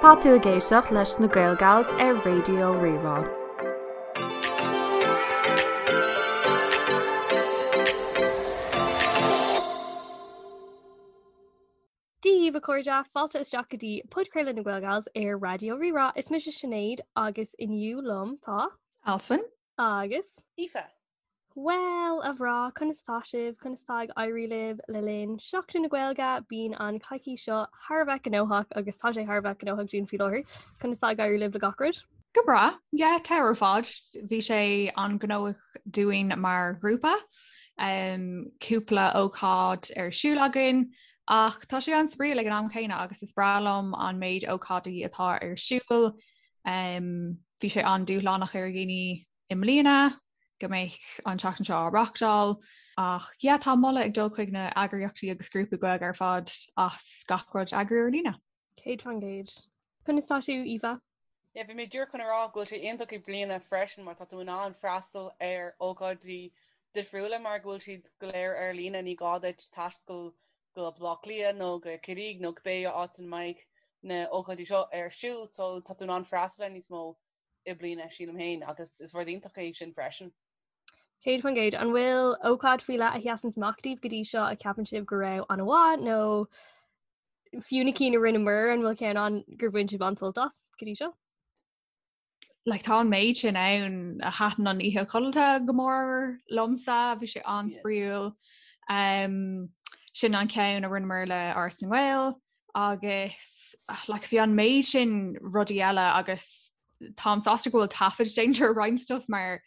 Tá tú ag éisteacht leis na Gaelgals ar Raidió Rí-Rá. Dia daoibh a chairde, fáilte isteach go dtí podchraoladh na Gaelgals ar Raidió Rí-Rá. Is mise Sinéad agus inniu liom tá. Alswyn. Agus. Aoife. Bhuel, a mhná, conas tá sibh? Conas tá ag éirí libh le linn Seachtain na Gaeilge? Bíonn an coicís seo thar a bheith gnóthach agus tá sé thar a bheith gnóthach dúinn faoi láthair. Conas tá ag éirí libh le gach rud? Go breá, yeah, tá ar fad. Bhí sé an-ghnóthach dúinn mar ghrúpa. Um, cúpla ócáid ar siúl againn, ach tá sé an-spraíúil ag an am chéanna agus is breá liom an méid ócáidí atá ar siúl. Um, bhí sé an-dúshlánach ar dhaoine i mbliana go mbeadh an tseachtain seo á reáchtáil ach yeah tá moladh ag dul chuig na eagraíochtaí agus grúpaí Gaeilge ar fad as gach rud a eagrú ar líne. 100%. Conas tá tú, Aoife? Yeah, bhí mé díreach chun a rá go bhfuil sé iontach i mbliana freisin mar tá tú in ann freastal ar ócáidí difriúla mar go bhfuil siad go léir ar líne, ní gá duit taisteal go Baile Átha Cliath nó go Ciarraí nó cibé áit ina mbeidh na ócáidí seo ar siúl so tá tú in ann freastal ar níos mó i mbliana, sílim féin, agus is rud iontach é sin freisin. 100%. An bhfuil ócáid faoi leith a sheasann amach daoibh go dtí seo a ceapann sibh go raibh an-mhaith nó fiú na cinn a rinneamar an bhfuil ceann ann gur bhain sibh an-sult as go dtí seo? Like, tá an méid sin ann a thaitin an oíche codlata go mór liomsa, bhí sé an-spraíúil. Um, sin an ceann a rinneamar le Áras na nGael agus like, bhí an méid sin rudaí eile agus táim sásta go bhfuil taifead déanta ar roinnt stuff mar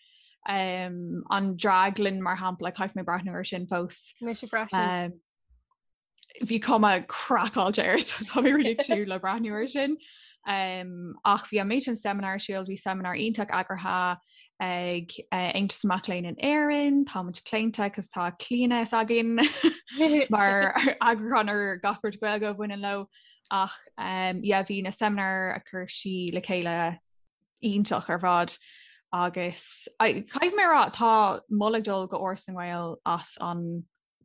um, an draglann mar shampla caithfidh mé breathnú ar sin fós. Mise freisin. Um, bhí cuma craiceáilte air so tá mé really ag súil le breathnú ar sin. Um, ach bhí an méid sin seimineár ar siúl, bhí seimineár iontach eagraithe ag uh, Aontas Mac Léinn in Éirinn, tá muid claonta cos tá Clíona s'againn mar eagrúchán ar gach rud Gaeilge a bhaineann leo ach um, yeah, bhí na seimineáir a chuir sí le chéile iontach ar fad agus caithfidh mé a rá tá moladh ag dul go Áras na nGael as an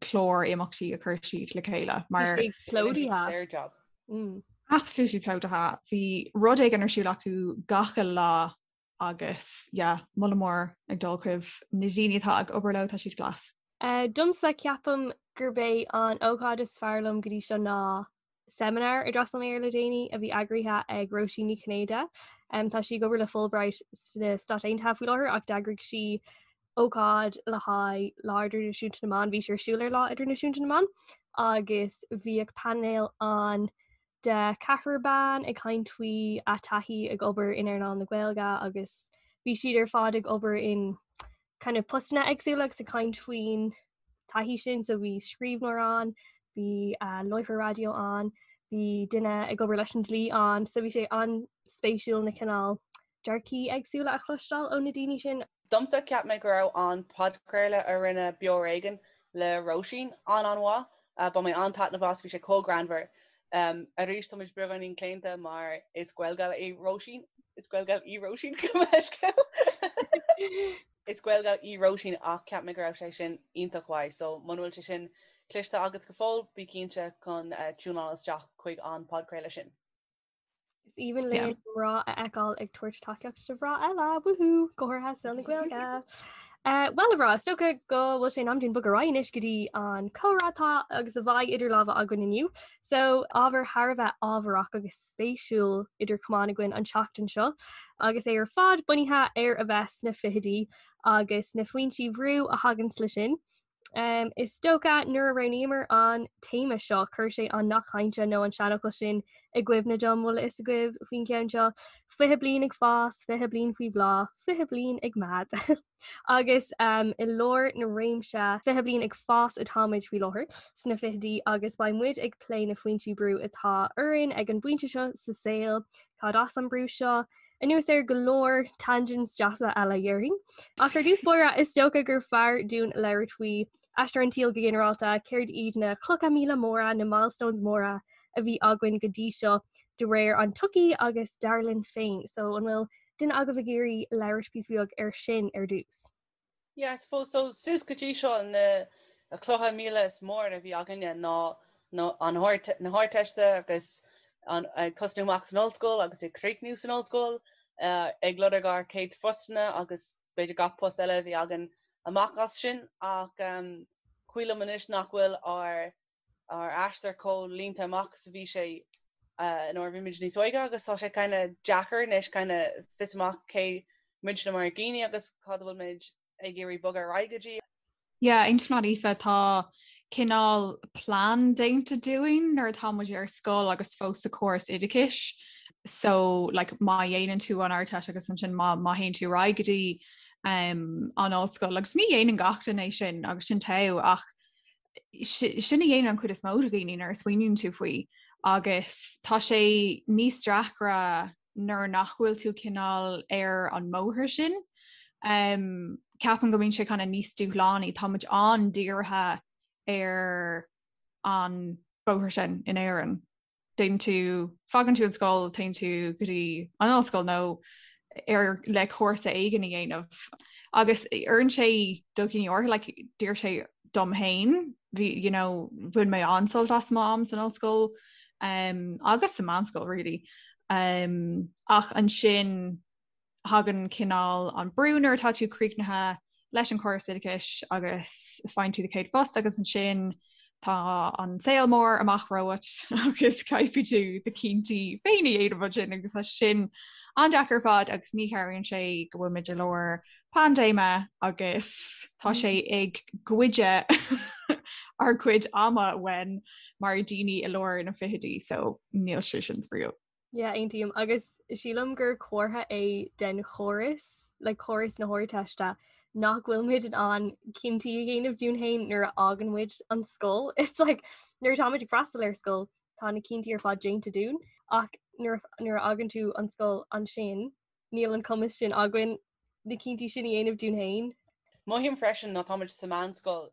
clár imeachtaí a chuir siad le chéile mar plódaithe. Mm. Absolutely plódaithe. Bhí rud éigin ar siúl acu gach uile lá agus yeah, moladh mór ag dul chuig na daoine atá ag obair leo tá siad class. Uh, domsa ceapaim gurb é an ócáid is fearr liom go dtí seo ná seimineár a d'fhreastail mé air le déanaí a bhí eagraithe ag Róisín Ní Chinnéide. Um, tá sí ag obair le Fulbright sna Stáit Aontaithe faoi láthair ach d'eagraigh sí ócáid le haghaidh Lá Idirnáisiúnta na mBan, bhí sé ar siúl ar Lá Idirnáisiúnta na mBan agus bhíodh painéal ann de ceathrar ban ag caint faoi a taithí ag obair in earnáil na Gaeilge agus bhí siad ar fad ag obair in kind of postanna éagsúla agus ag caint faoin taithí sin so bhí scríbhneoir ann, bhí uh, láithreoir raidió ann, bhí duine ag obair leis an dlí ann, so bhí sé an-spéisiúil na cineál dearcaí éagsúla a chloisteáil ó na daoine sin. Domsa, cheap mé go raibh an podchraoladh a rinne Beo Ar Éigean le Róisín an-an-mhaith. Bhain mé an-taitneamh as, bhí sé chomh greannmhar. Arís, tá muid beagáinín claonta mar is Gaelgal í Róisín. Is Gaelgal í Róisín, gabh mo leithscéal. Is Gaelgal í Róisín ach cheap mé go raibh sé sin iontach mhaith so muna bhfuil sé sin cloiste agat go fóill, bí cinnte chun tiúnáil isteach chuig an podchraoladh sin. Is aoibhinn linn mná a fheiceáil ag tabhairt tacaíocht do mhná eile, woohoo, go háirithe i saol na Gaeilge. Uh, well a mhná, is dócha go bhfuil sé in am dúinn bogadh ar aghaidh anois go dtí an comhrá atá agus a bheidh idir lámha againn inniu. So ábhar thar a bheith ábharach agus spéisiúil idir chamáin againn an tseachtain seo, agus é ar fad bunaithe ar a bheith sna fichidí agus na foinsí bhrú a thaganns le sin. Um, is dócha nuair a roghnaíomar an téama seo chuir sé an nath cainte nó an seanfhocal sin i gcuimhne dom bhfuil a fhios agaibh faoin gceann seo 20 bliain ag fás, 20 bliain faoi bhláth, 20 bliain ag meath. Agus um, i lár na réimse 20 bliain ag fás atáimid faoi láthair sna fichidí agus beidh muid ag plé na foinsí brú atá orainn ag an bpointe seo sa saol, cad as an brú seo, Anuas ar go leor tangents deasa eile dhéarfainn. Ach ar dtús báire, is dócha gur fearr dúinn labhairt faoi aistear an tsaoil go ginearálta, céard iad na clocha míle móra, na milestones móra a bhí againn go dtí seo de réir an tsochaí agus dar linn féin. So an bhfuil duine agaibh ag iarraidh labhairt píosa beag ar sin ar dtús? Yeah, I suppose so suas go dtí seo na clocha míle is mór a bhí againne ná na an na hArdteiste agus. An, ag tosnú amach san ollscoil agus ag críochnú san ollscoil, ag lorg ár céad phostanna agus b'fhéidir gach post eile a bhí againn amach as sin ach cuimhin liom anois nach bhfuil ár ár aistear chomh línte amach is a bhí sé nuair a bhí muid níos óige agus tá sé kind of deacair anois kind of fios amach cé muidne mar dhaoine agus cad a bhfuil muid ag iarraidh bogadh ar aghaidh go dtí. Yeah, aontaím leat Aoife, tá cineál plean déanta dúinn nuair atá muid ar scoil agus fós sa chóras oideachais. So like má dhéanann tú an Ardteist agus ansin má má théann tú ar aghaidh go dtí um, an ollscoil agus ní dhéanann gach duine é sin agus sin togha ach sin a dhéanann an chuid is mó de dhaoine nuair a smaoiníonn tú faoi agus tá sé níos deacra nuair nach bhfuil tú cineál ar an mbóthar sin. Um, ceapaim go mbíonn sé kind of níos dúshlánaí, tá muid an-dírithe ar an bóthar sin in Éirinn. Déanann tú, fágann tú an scoil, téann tú go dtí an ollscoil nó ar le cúrsa éigin a dhéanamh. Agus oireann sé do dhaoine áirithe, like, d'oir sé dom féin, bhí, you know, bhain mé an-sult as m'am san ollscoil um, agus sa meánscoil really. Um, ach ansin thagann cineál an brú nuair atá tú críochnaithe leis an chóras oideachais agus faigheann tú do chéad phost agus ansin tá an saol mór amach romhat agus caithfidh tú do chinntí féin a dhéanamh ansin agus tá sin an-deacair ar fad agus ní chabhraíonn sé go bhfuil muid i lár paindéime agus tá sé ag goid ár gcuid ama uainn mar daoine i lár na fichidí so níl sé sin spraíúil. Yeah, aontaím agus sílim gur comhartha é den chóras, like córas na hArdteiste, nach bhfuil muid in ann cinntí a dhéanamh dúinn féin nuair a fhágann muid an scoil. It's like nuair atá muid ag freastal ar scoil, tá na cinntí ar fad déanta dúinn, ach nuair nuair a fhágann tú an scoil ansin, níl an cumas sin againn na cinntí sin a dhéanamh dúinn féin. Mothaím freisin nuair atá muid sa mheánscoil,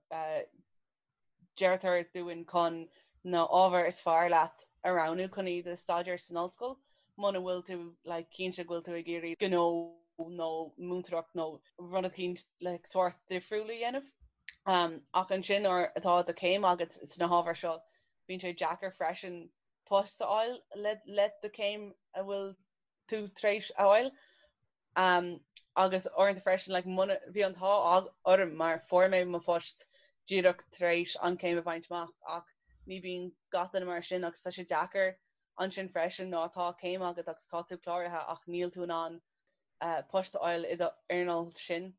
Deirtear dúinn chun na ábhair is fearr leat a roghnú chun iad a staidéar san ollscoil muna bhfuil tú like cinnte go bhfuil tú ag iarraidh gnó nó múinteoireacht nó rud eicínt like sórt difriúil a dhéanamh. Ach ansin nuair atá do chéim agat sna hábhair seo bíonn sé deacair freisin post a fháil le le do chéim a bhfuil tú tar éis a fháil. Agus uaireanta freisin, like, muna, bhí an t-ádh orm mar fuair mé mo phost díreach tar éis an chéim a bhaint amach ach ní bíonn gach duine mar sin agus tá sé deacair ansin freisin nuair atá céim agat agus tá tú cláraithe ach níl tú in ann post a fháil i do earnáil sin.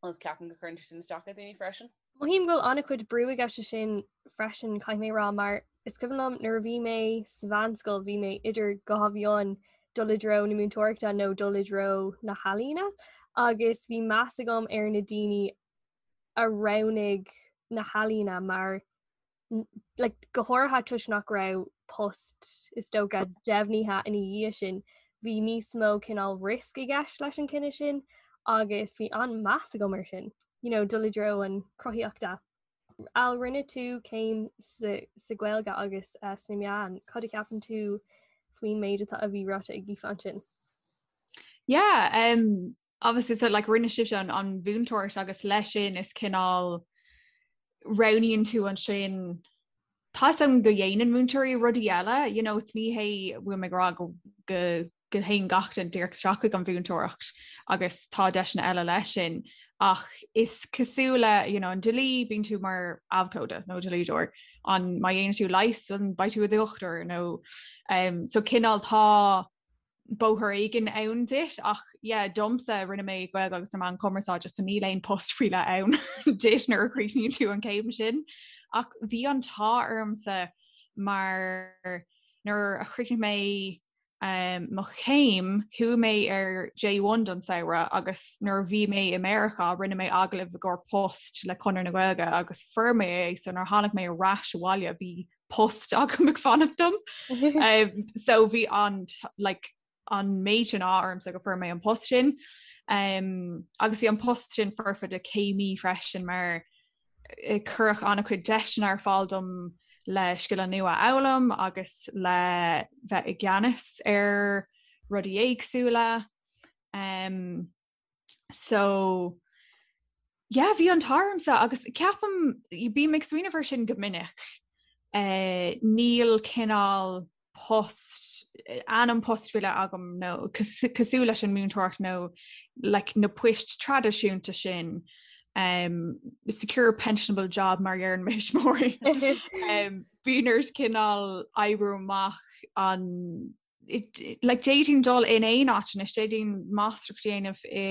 agus ceapaim go gcuireann sé sin isteach ar dhaoine freisin. Mothaím go bhfuil an-chuid brú i gceist leis sin freisin, caithfidh mé a rá, mar is cuimhin liom nuair a bhí mé sa mheánscoil bhí mé idir dhá mheon dul i dtreo na múinteoireachta nó dul i dtreo na healaíona agus bhí meas agam ar na daoine a roghnaigh na healaíona mar like, go háirithe toisc nach raibh post is dócha deimhnithe ina dhiaidh sin, bhí níos mó cineál risk i gceist leis an cinneadh sin agus bhí an-meas agam ar sin, you know, dul i dtreo an chruthaíochta. Al, rinne tú céim sa, sa Ghaeilge agus uh, sna meáin, cad a cheapann tú faoin méid atá a bhí ráite ag Aoife ansin? Yeah, um, obviously so like rinne sibhse an, an mhúinteoireacht agus leis sin is cineál roghnaíonn tú ansin Tá a fhios agam go dhéanann múinteoirí rudaí eile, you know, it's ní hé bhfuil mé ag rá go go go théann gach duine díreach isteach chuig an mhúinteoireacht agus tá deiseanna eile leis sin ach is cosúil le you know, an dlí bíonn tú mar abhcóide nó dlíodóir an má dhéanann tú leigheas an beidh tú i do dhochtúir nó um, so cineál tá bóthar éigin ann duit ach yeah domsa rinne mé Gaeilge agus na meáin chumarsáide so níl aon post faoi leith ann duit nuair a chríochnaíonn tú an céim sin ach bhí an t-ádh ormsa mar nuair a chríochnaigh mé um, mo chéim chuaigh mé ar J1 don samhradh agus nuair a bhí mé i Meiriceá rinne mé agallamh i gcomhair post le Conradh na Gaeilge agus fuair mé é so nuair a tháinig mé ar ais abhaile bhí post agam ag fanacht dom. Um, so bhí an like, an méid sin ádh ormsa go fuair mé an post sin. Um, agus bhí an post sin foirfe do céimí freisin mar eh, cuireadh an-chuid deiseanna ar fáil dom le scileanna nua a fhoghlaim agus le bheith i gceannas ar rudaí éagsúla. Um, So yeah, bhí an t-ádh ormsa agus ceapaim bím ag smaoineamh ar sin go minic. Uh, níl cineál post ainm post faoi leith agam nó cosúil leis an múinteoireacht nó like, na poist traidisiúnta sin um, secure pensionable job mar a deireann mo thuismitheoirí. um, bíonn ort cineál oibriú amach an like d'fhéadfainn dul in aon áit anois, d'fhéadfainn máistreacht a dhéanamh i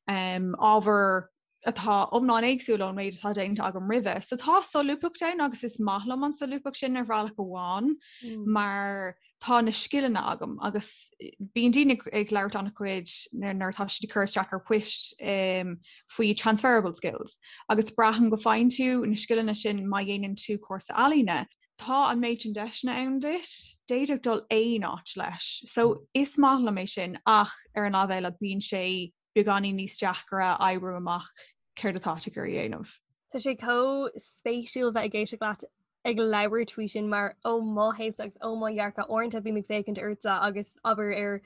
um, ábhar atá iomlán éagsúil ón méid atá déanta agam roimhe. So tá solúbthacht ann agus is maith liom an solúbthacht sin ar bhealach amháin mm. mar tá na scileanna agam agus bíonn daoine ag labhairt an-chuid nuair atá siad ag cur isteach ar poist um, faoi transferable skills agus braithim go bhfaigheann tú na scileanna sin má dhéanann tú cúrsa ealaíne. Tá an méid sin deiseanna ann duit, d'fhéadfadh dul aon áit leis. So is maith liom é sin ach ar an lámh eile bíonn sé beagáinín níos deacra oibriú amach céard atá tú ag iarraidh a dhéanamh. Tá sé chomh spéisiúil bheith ag éisteacht leat ag labhairt faoi sin mar ó mo thaobhsa agus ó mo dhearcadh uaireanta bím ag féachaint ortsa agus abair ar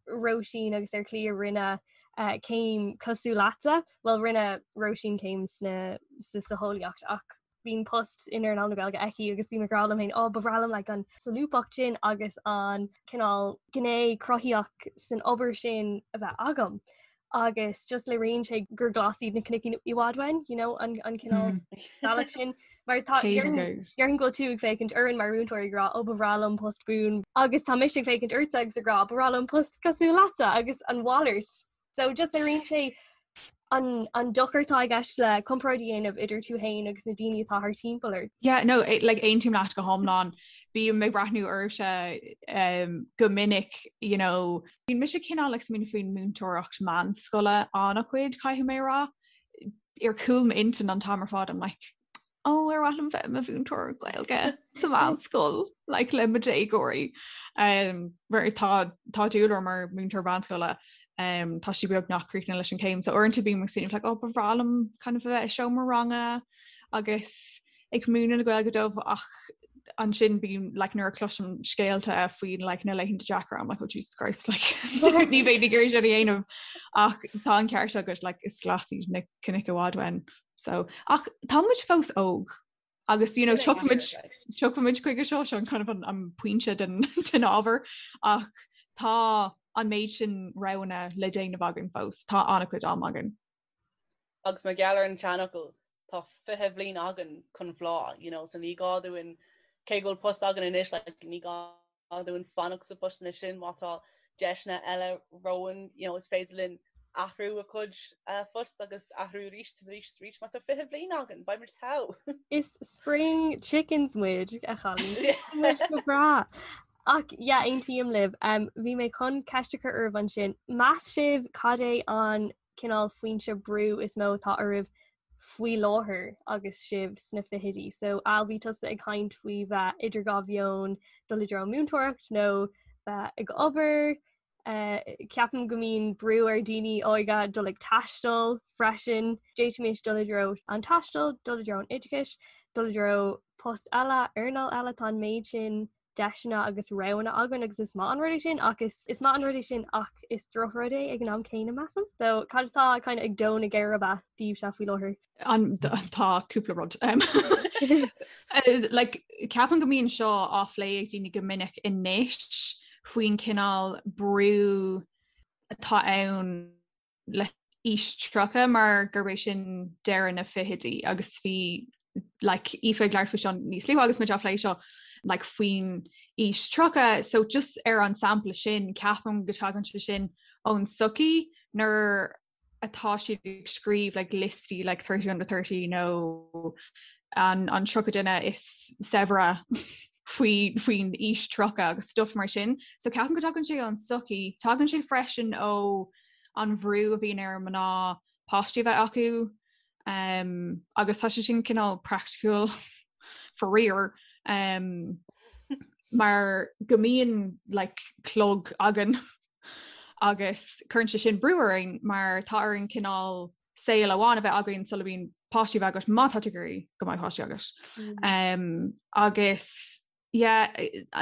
Róisín agus ar Chliodh a rinne eh, céim cosúil leatsa, bhuel rinne Róisín céim sna sa socheolaíocht ach bíonn post in earnáil na Gaeilge aici agus bím ag rá liom féin, ó ba bhreá liom like, an solúbthacht sin agus an cineál gné cruthaitheach san obair sin a bheith agam. Agus just léiríonn sé gur glas iad na cnoic i bhfad uainn, you know, an, an cineál mm. bealach sin. Mar tá déarfainn go bhfuil tú ag féachaint orainn mar mhúinteoir ag rá ó ba bhreá liom post buan agus tá mise ag féachaint ortsa agus ag rá ba bhreá liom post cosúil leatsa agus an mhalairt. So just léiríonn sé an, an dochar atá i gceist le comparáid a dhéanamh idir tú féin agus na daoine atá thar timpeall ort. Yeah, no, eh, like, aontaím leat go hiomlán. Bím ag breathnú oraibhse um, go minic, you know, bíonn mise cineál ag smaoineamh faoin múinteoireacht meánscoile an-chuid, caithfidh mé a rá. Ar chúl m'intinn an t-am ar fad, I'm like, ó ar mhaith liom bheith i mo mhúinteoir Gaeilge sa mheánscoil like, le mo déagóirí. Um, mar tá tá dúil orm mar múinteoir meánscoile um, tá sí beagnach críochnaithe leis an céim, so uaireanta bím ag smaoineamh like, oh, ba bhreá liom kind of a bheith i seomra ranga agus ag múineadh na Gaeilge dóibh ach ansin bím like, nuair a chloisim scéalta faoin like, na laethanta deacra I'm like, oh Jesus Christ like, ní bheinn ag iarraidh sin a dhéanamh ach tá an ceart agat like, is glas iad na cnoic i bhfad uainn. So, ach tá muid fós óg agus you know, tiocfaimid tiocfaimid chuige seo seo an kind of an, an pointe den, den ábhar ach tá an méid sin roghanna le déanamh againn fós, tá an-chuid am againn. Agus mar gheall ar an tseanfhocal tá 20 bhliain againn chun bhláth, you know, so ní gá dúinn cé go bhfuil post againn anois like, ní gá dúinn fanacht sa phost sin má tá deiseanna eile romhainn, you know, is féidir linn athrú a chuid uh, phost agus athrú arís arís arís má tá 20 bhliain againn, beidh muid togha. Is spring chickens muid a chailíní go breá. Ach yeah, aontaím libh. Um, bhí mé chun ceist a chur oraibh ansin. Meas sibh cad é an cineál foinse brú is mó atá oraibh faoi láthair agus sibh sna fichidí. So Al bhí tusa ag caint faoi bheith idir dhá mheon dul i dtreo múinteoireacht nó bheith ag obair. Uh, ceapaim go mbíonn brú ar daoine óga dul ag taisteal freisin. D'fhéadfaimis dul i dtreo an taistil, dul i dtreo an oideachais, dul i dtreo post eile, earnáil eile tá an méid sin deiseanna agus roghanna againn agus is maith an rud é sin ach is is maith an rud é sin ach is drochrud é ag an am céanna measaim. So cad atá kind of ag dó na geirbe daoibhse faoi láthair? An tá cúpla rud. Um, eh, like, ceapaim go mbíonn seo á phlé ag daoine go minic anois faoin cineál brú atá ann le haois 30 mar gurb é sin deireadh na fichidí agus bhí like Aoife ag labhairt faoi seo níos luaithe agus muid á phlé seo like faoin aois 30 so just ar an sampla sin ceapaim go dtagann sé sin ón sochaí nuair atá siad ag scríobh like liostaí like 30 under 30 nó an an 30 duine is saibhre faoi faoin aois 30 agus stuff mar sin so ceapaim go dtagann sé ón sochaí tagann sé freisin ó an bhrú a bhíonn ar mná páistí a bheith acu um, agus tá sé sin cineál praiticiúil faraor um, mar go mbíonn like, clog againn agus cuireann sé sin brú orainn mar tá orainn cineál saol amháin a bheith againn sula mbíonn páistí a bheith agat má tá tú ag iarraidh go mbeidh páistí agat. Mm. Um, agus yeah,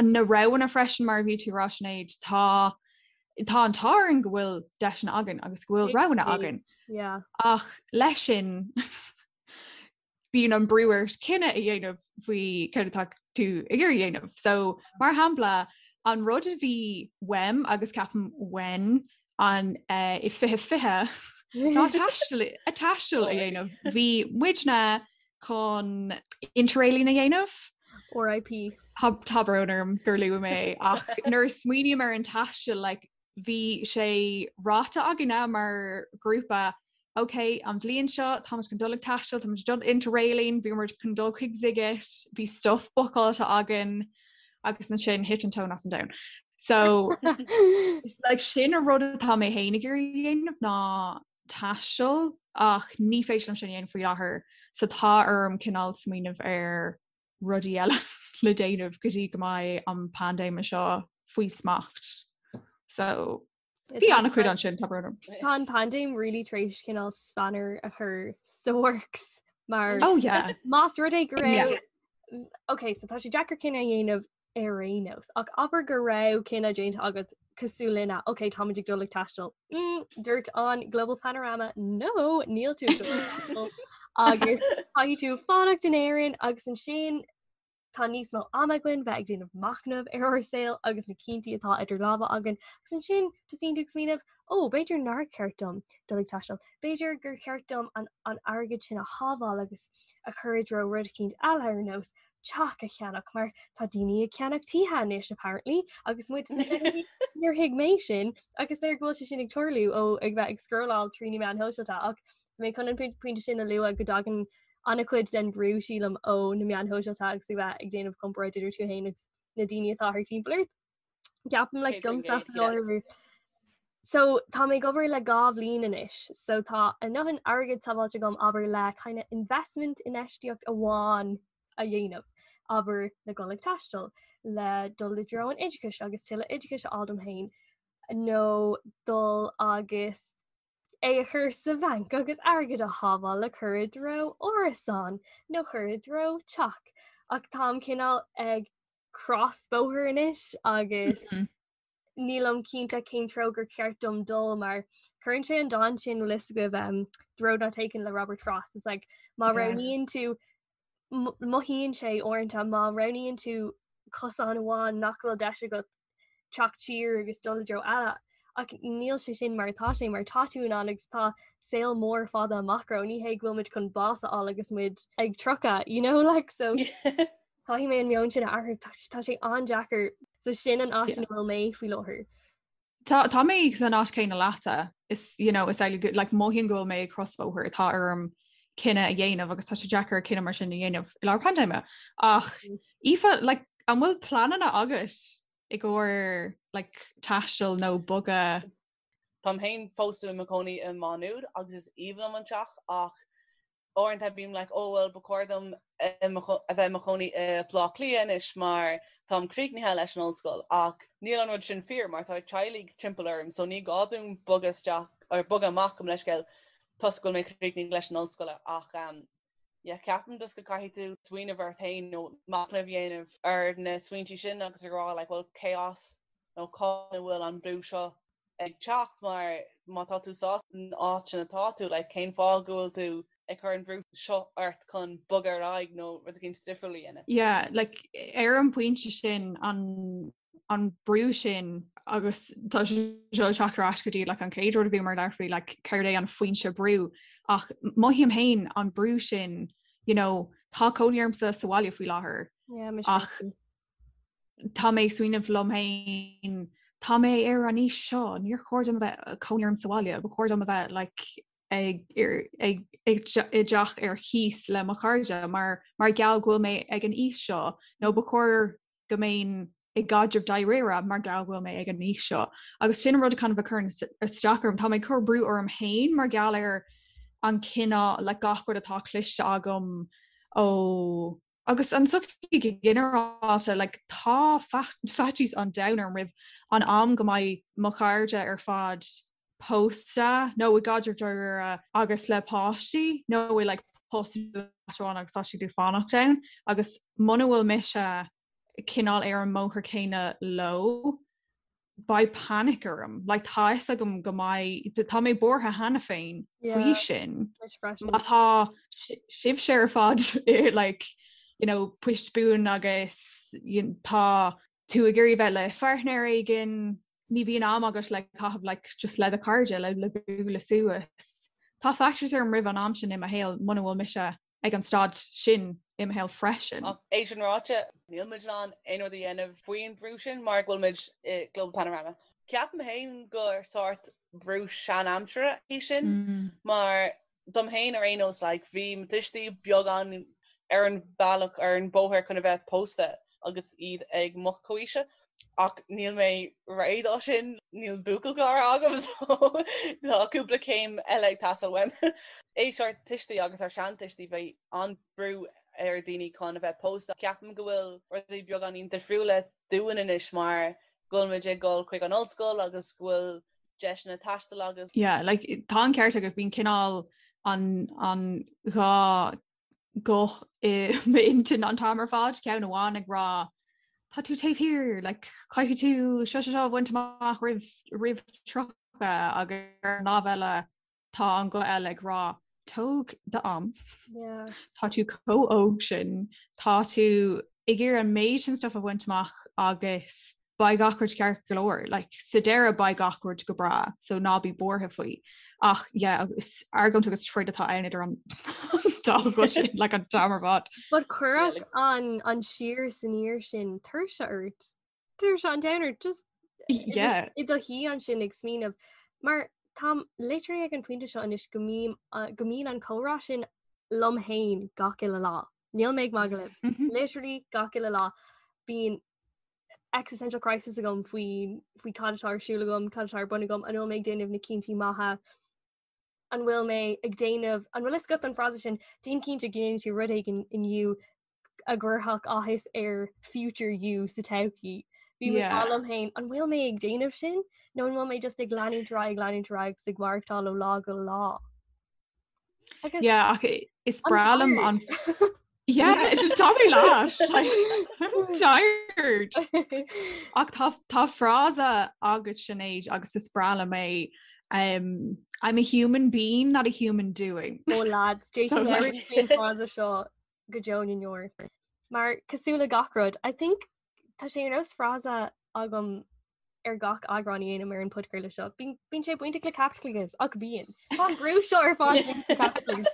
na roghanna freisin mar a bhí tú ag rá Sinéad, tá tá an t-ádh orainn go bhfuil deiseanna againn agus go bhfuil roghanna againn. Yeah. Ach leis sin bíonn an brú ort cinneadh a dhéanamh faoi céard atá tú tú ag iarraidh a dhéanamh. So mar shampla an rud a bhí uaim agus ceapaim uainn an eh, i 2020 ná taisteal a taisteal a dhéanamh. Bhí muidne chun interrailing a dhéanamh. RIP. Tá tá brón orm gur luaigh mé ach nuair a smaoiním ar an taisteal like, bhí sé ráite againne mar ghrúpa ok an bhliain seo táimid chun dul ag taisteal, táimid dul interrailing, bhí muid chun dul chuig Sziget, bhí stuff bookáilte againn agus ansin thit an tóin as an domhan. So like, sin an rud atá mé féin ag iarraidh a dhéanamh ná taisteal ach ní féidir liom sin a dhéanamh faoi láthair so tá orm cineál smaoineamh ar rudaí eile le déanamh go dtí go mbeidh an paindéim seo faoi smacht. So bhí an-chuid ansin tá brón orm. Tá an paindéim really tar éis cineál spanner a chur sa works mar Oh yeah. Más rud é go raibh Ok, so tá sé deacair cinneadh a dhéanamh ar aon nós. Ach abair go raibh cinneadh déanta agat cosúil linne, ok, táimid ag dul ag taisteal. Mm, dúirt an Global Panorama, no, níl tú ag dul ag taisteal. Agus caithfidh tú fanacht in Éirinn agus ansin tá níos mó ama againn bheith ag déanamh machnamh ar ár saol agus na cinntí atá idir lámha againn. Agus ansin tosaíonn tú ag smaoineamh, ó, b'fhéidir nár cheart dom dul ag taisteal. B'fhéidir gur cheart dom an, an airgead sin a shábháil agus a chur i dtreo rud eicínt eile ar nós teach a cheannach mar tá daoine ag ceannach tithe anois apparently agus muid sna fichidí níor thuig mé sin agus léir go bhfuil sé sin ag tarlú ó ag bheith ag scrolláil trí na meáin shóisialta ach mé chun an pointe sin a lua go dtagann an-chuid den brú sílim ó na meáin shóisialta agus ag bheith ag déanamh comparáid idir tú féin agus na daoine atá thart timpeall ort. Ceapaim like domsa faoi So tá mé ag obair le 2 bhliain anois, so tá a ndóthain airgid sábháilte agam abair le kind of investment infheistíocht amháin a dhéanamh, abair le dul ag taisteal, le dul i dtreo an oideachais agus tuilleadh oideachais a fháil dom féin, nó dul agus é a chur sa bhanc agus airgead a shábháil le cur i dtreo árasán nó cur i dtreo teach. Ach táim cineál ag crosbhóthar anois agus mm -hmm. nílim cinnte cén treo gur cheart dom dul mar cuireann sé an dán sin bhfuil fhios agaibh um, The Road Not Taken le Robert Frost. It's like má roghnaíonn tú mothaíonn sé uaireanta má roghnaíonn tú cosán amháin nach bhfuil deis agat teacht siar agus dul i dtreo eile. Ach níl sé sin mar atá sé mar tá tú in ann agus tá saol mór fada amach romhainn ní hé go bhfuil muid chun bás a fháil agus muid ag 30 you know like so Caithfidh mé an meon sin a athrú, tá sé an-deacair. So sin an áit ina bhfuil mé faoi láthair. Tá tá mé san áit céanna leatsa is you know is like like mothaím go bhfuil mé ag crosbhóthar atá orm cinneadh a dhéanamh agus tá sé deacair cinneadh mar sin a dhéanamh i lár paindéime. Ach mm. Aoife like an bhfuil pleananna agat i gcomhair like taisteal nó bogadh Táim féin fós i mo chónaí i Má Nuad agus is aoibhinn liom an teach ach uaireanta bím like oh well ba chóir dom a bheith i mo chónaí i Baile Átha Cliath anois mar táim críochnaithe leis an ollscoil ach níl an rud sin fíor mar tá teaghlaigh timpeall orm so ní gá dom bogadh isteach or bogadh amach gabh mo leithscéal toisc go bhfuil mé críochnaithe leis an ollscoil ach um, yeah, ceapaim just go caithfidh tú smaoineamh ort féin nó machnamh a dhéanamh ar na smaointí sin agus a rá like well cé as nó cá bhfuil an brú seo ag teacht mar má tá tú sásta san áit sin atá tú, like cén fáth go bhfuil tú ag cur an bhrú seo ort chun bogadh ar aghaidh nó rud eicínt difriúil a dhéanamh? Yeah, like ar an bpointe sin an an brú sin agus tá sé seo ag teacht ar ais go dtí like an chéad rud a bhíomar ag labhairt faoi like céard é an foinse brú ach mothaím féin an brú sin you know tá cónaí ormsa sa bhaile faoi láthair yeah, ach tá mé ag smaoineamh liom féin, tá mé ar an aois seo, níor chóir dom a bheith cónaí orm sa bhaile, ba chóir dom a bheith like, ag, ag, ag, i dteach ar cíos le mo chairde mar mar gheall go bhfuil mé ag an aois seo nó ba chóir go mbeinn i gcaidreamh dáiríre mar gheall go bhfuil mé ag an aois seo. Agus sin an rud a kind of a chuireann isteach orm, tá mé ag cur brú orm féin mar gheall ar an cineál like, gach rud atá cloiste agam ó Agus an tsochaí go ginearálta, like, tá faitíos an domhain orm roimh an am go mbeidh mo chairde ar fad pósta nó i gcaidreamh dáiríre agus le páistí nó i like post amháin agus tá siad ag fanacht ann agus muna bhfuil mise cineál ar an mbóthar céanna leo, beidh panic orm. Like tá fhios agam go mbeidh, tá mé buartha cheana féin faoi sin. Má tá sibhse ar fad i like, you know, poist buan agus. tá tú ag iarraidh bheith le pháirtnéir éigin, ní bhíonn am agat le caitheamh like just le do chairde le le bualadh suas. Tá faitíos orm roimh an am sin i mo shaol muna bhfuil mise ag an staid sin i mo shaol freisin. Ach é sin ráite, níl muid in ann aon rud a dhéanamh faoin bhrú sin mar go bhfuil muid i Global Panorama. Ceapaim féin gur sórt brú sean-aimsire é sin mar dom féin ar aon nós like bhí mo tuistí beagán ar an bhealach ar an bóthar chun a bheith pósta agus iad ag mo chomhaoise ach níl mé réidh dó sin, níl buachaill cara agam so tá cúpla céim eile ag teastáil uaim. Aois ár tuistí agus ár seantuistí bhí an-brú ar daoine chun a bheith pósta. Ceapaim go bhfuil rudaí beagáinín difriúla dúinn anois mar go bhfuil muid ag dul chuig an ollscoil agus go bhfuil deiseanna taistil agus. Yeah, like, tá an ceart agat, bíonn cineál an, an dá ghuth i m'intinn an t-am ar fad, ceann amháin ag rá tá tú taobh thiar, like, caithfidh tú seo seo seo a bhaint amach roimh, roimh 30 agus ar an lámh eile Tá an guth eile ag rá, tóg d'am. Tá tú chomh óg sin, tá tú ag iarraidh an méid sin stuff a bhaint amach agus beidh gach rud ceart go leor. Like, sa deireadh beidh gach rud go breá, so ná bí buartha faoi. Ach yeah, is argóint agus troid atá ann idir an dá ghuth sin, like an t-am ar fad. But cuirfeadh an, an siar is aniar sin tuirse ort. Tuirse an domhain ort just yeah. i do shuí ansin ag smaoineamh mar táim literally ag an pointe seo anois go mbím go mbíonn an comhrá sin liom féin gach uile lá. Níl mé ag magadh libh. Mm-hmm. Literally gach uile lá bíonn existential crisis agam faoi faoi cad atá ar siúl agam, cad atá ar bun agam, an bhfuil mé ag déanamh na cinntí maithe, an bhfuil mé ag déanamh an bhfuil fhios agat an frása sin déan cinnte go ndéanann tú rud éigin inniu a gcuirfeadh áthas ar future you sa todhchaí. Bím ag rá liom féin, an bhfuil mé ag déanamh sin nó an bhfuil mé just ag leanúint ar aghaidh, ag leanúint ar aghaidh agus ag maireachtáil ó lá go lá? Agus Yeah, ach is breá liom an Yeah, tá mé leat. Like, I'm tired. Ach tá tá frása agat Sinéad agus is breá liom é um, I'm a human being, not a human doing. Oh lads, Jason So, like- faoin frása seo go deo na ndeor. Mar cosúil le gach rud, I think tá sé ar nós frása agam ar gach eagrán a dhéanaim ar an podchraoladh seo. Bíonn sé bainteach le caipitleachas ach bíonn. Tá an brú seo ar fad bainteach le caipitleachas.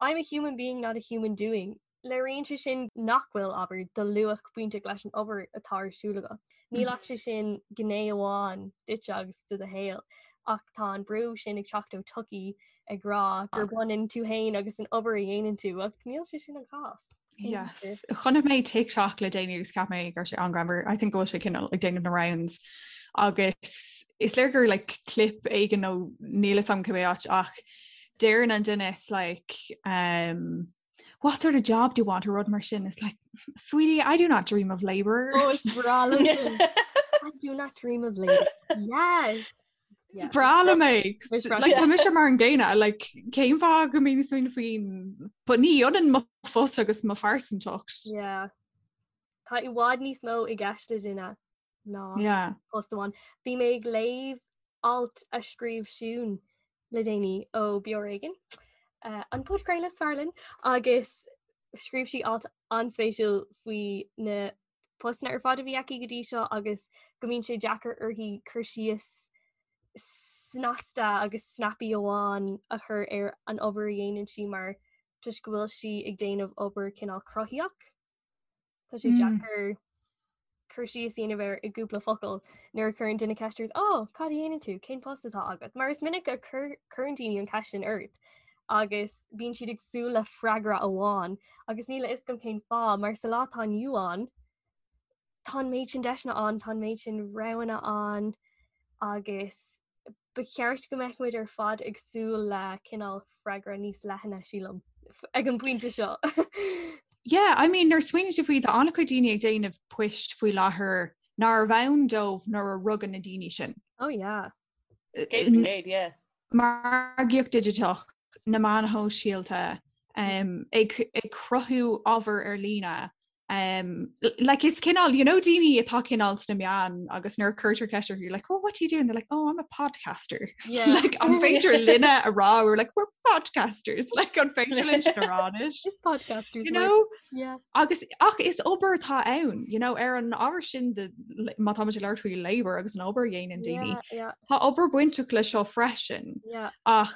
I'm a human being, not a human doing. Léiríonn sé sin nach bhfuil, abair, do luach bainteach leis an obair atá ar siúl agat. Níl ach sé sin gné amháin duitse agus de do shaol, ach tá an brú sin ag teacht ó tsochaí ag rá gur baineann tú féin agus an obair a dhéanann tú ach níl sé sin an cás. Yes. Chonaic mé TikTok le déanaí agus cheap mé go raibh sé an-ghreannmhar. I think go bhfuil sé cineál ag déanamh na rounds agus is léir gur like clip éigin nó níl a fhios agam cibé áit ach deireann an duine is like um, what sort of job do you want or rud mar sin it's like sweetie I do not dream of labor. Oh, is breá liom sin. I do not dream of labor. Yes. Is breá liom é. Like, tá mise mar an gcéanna, like, cén fáth go mbím ag smaoineamh faoin but ní ionann mo phost agus mo phearsantacht. Yeah. Tá i bhfad níos mó i gceist le duine ná Yeah. post amháin. Bhí mé ag léamh alt a scríobh Siún le déanaí ó Beo Ar Éigean, uh, an podchraoladh is fearr linn, agus scríobh sí alt an-spéisiúil faoi na postanna ar fad a bhí aici go dtí seo agus go mbíonn sé deacair uirthi cur síos snasta agus snappy amháin a chur ar an obair a dhéanann sí mar toisc go bhfuil sí ag déanamh obair cineál cruthaíoch. Tá sé deacair cur síos a dhéanamh air i gcúpla focal nuair a chuireann duine ceist ort, "Ó, cad a dhéanann tú? Cén post atá agat?" Mar is minic a chuireann daoine an cheist sin ort agus bíonn siad ag súil le freagra amháin agus níl a fhios agam cén fáth mar sa lá atá inniu ann tá an méid sin deiseanna ann, tá an méid sin roghanna ann agus ba cheart go mbeadh muid ar fad ag súil le cineál freagra níos leithne sílim ag an bpointe seo. Yeah, I mean, nuair a smaoiníonn tú faoi tá an-chuid daoine ag déanamh poist faoi láthair nárbh ann dóibh nuair a rugadh na daoine sin. Oh yeah. 100%, yeah. Margaíocht digiteach, na meáin shóisialta, ag ag cruthú ábhar ar líne. Um, like is cineál you know daoine atá cineál sna meáin agus nuair a cuirtear ceist orthu like oh what do you do and they're like oh I'm a podcaster yeah. like an féidir linne a rá we're like we're podcasters like an féidir linn a rá anois podcasters you know yeah. agus ach is obair atá ann you know ar an ábhar sin de má tá muid ag labhairt faoi labor agus an obair a dhéanann daoine yeah, yeah. Tá obair bainteach le seo freisin yeah. ach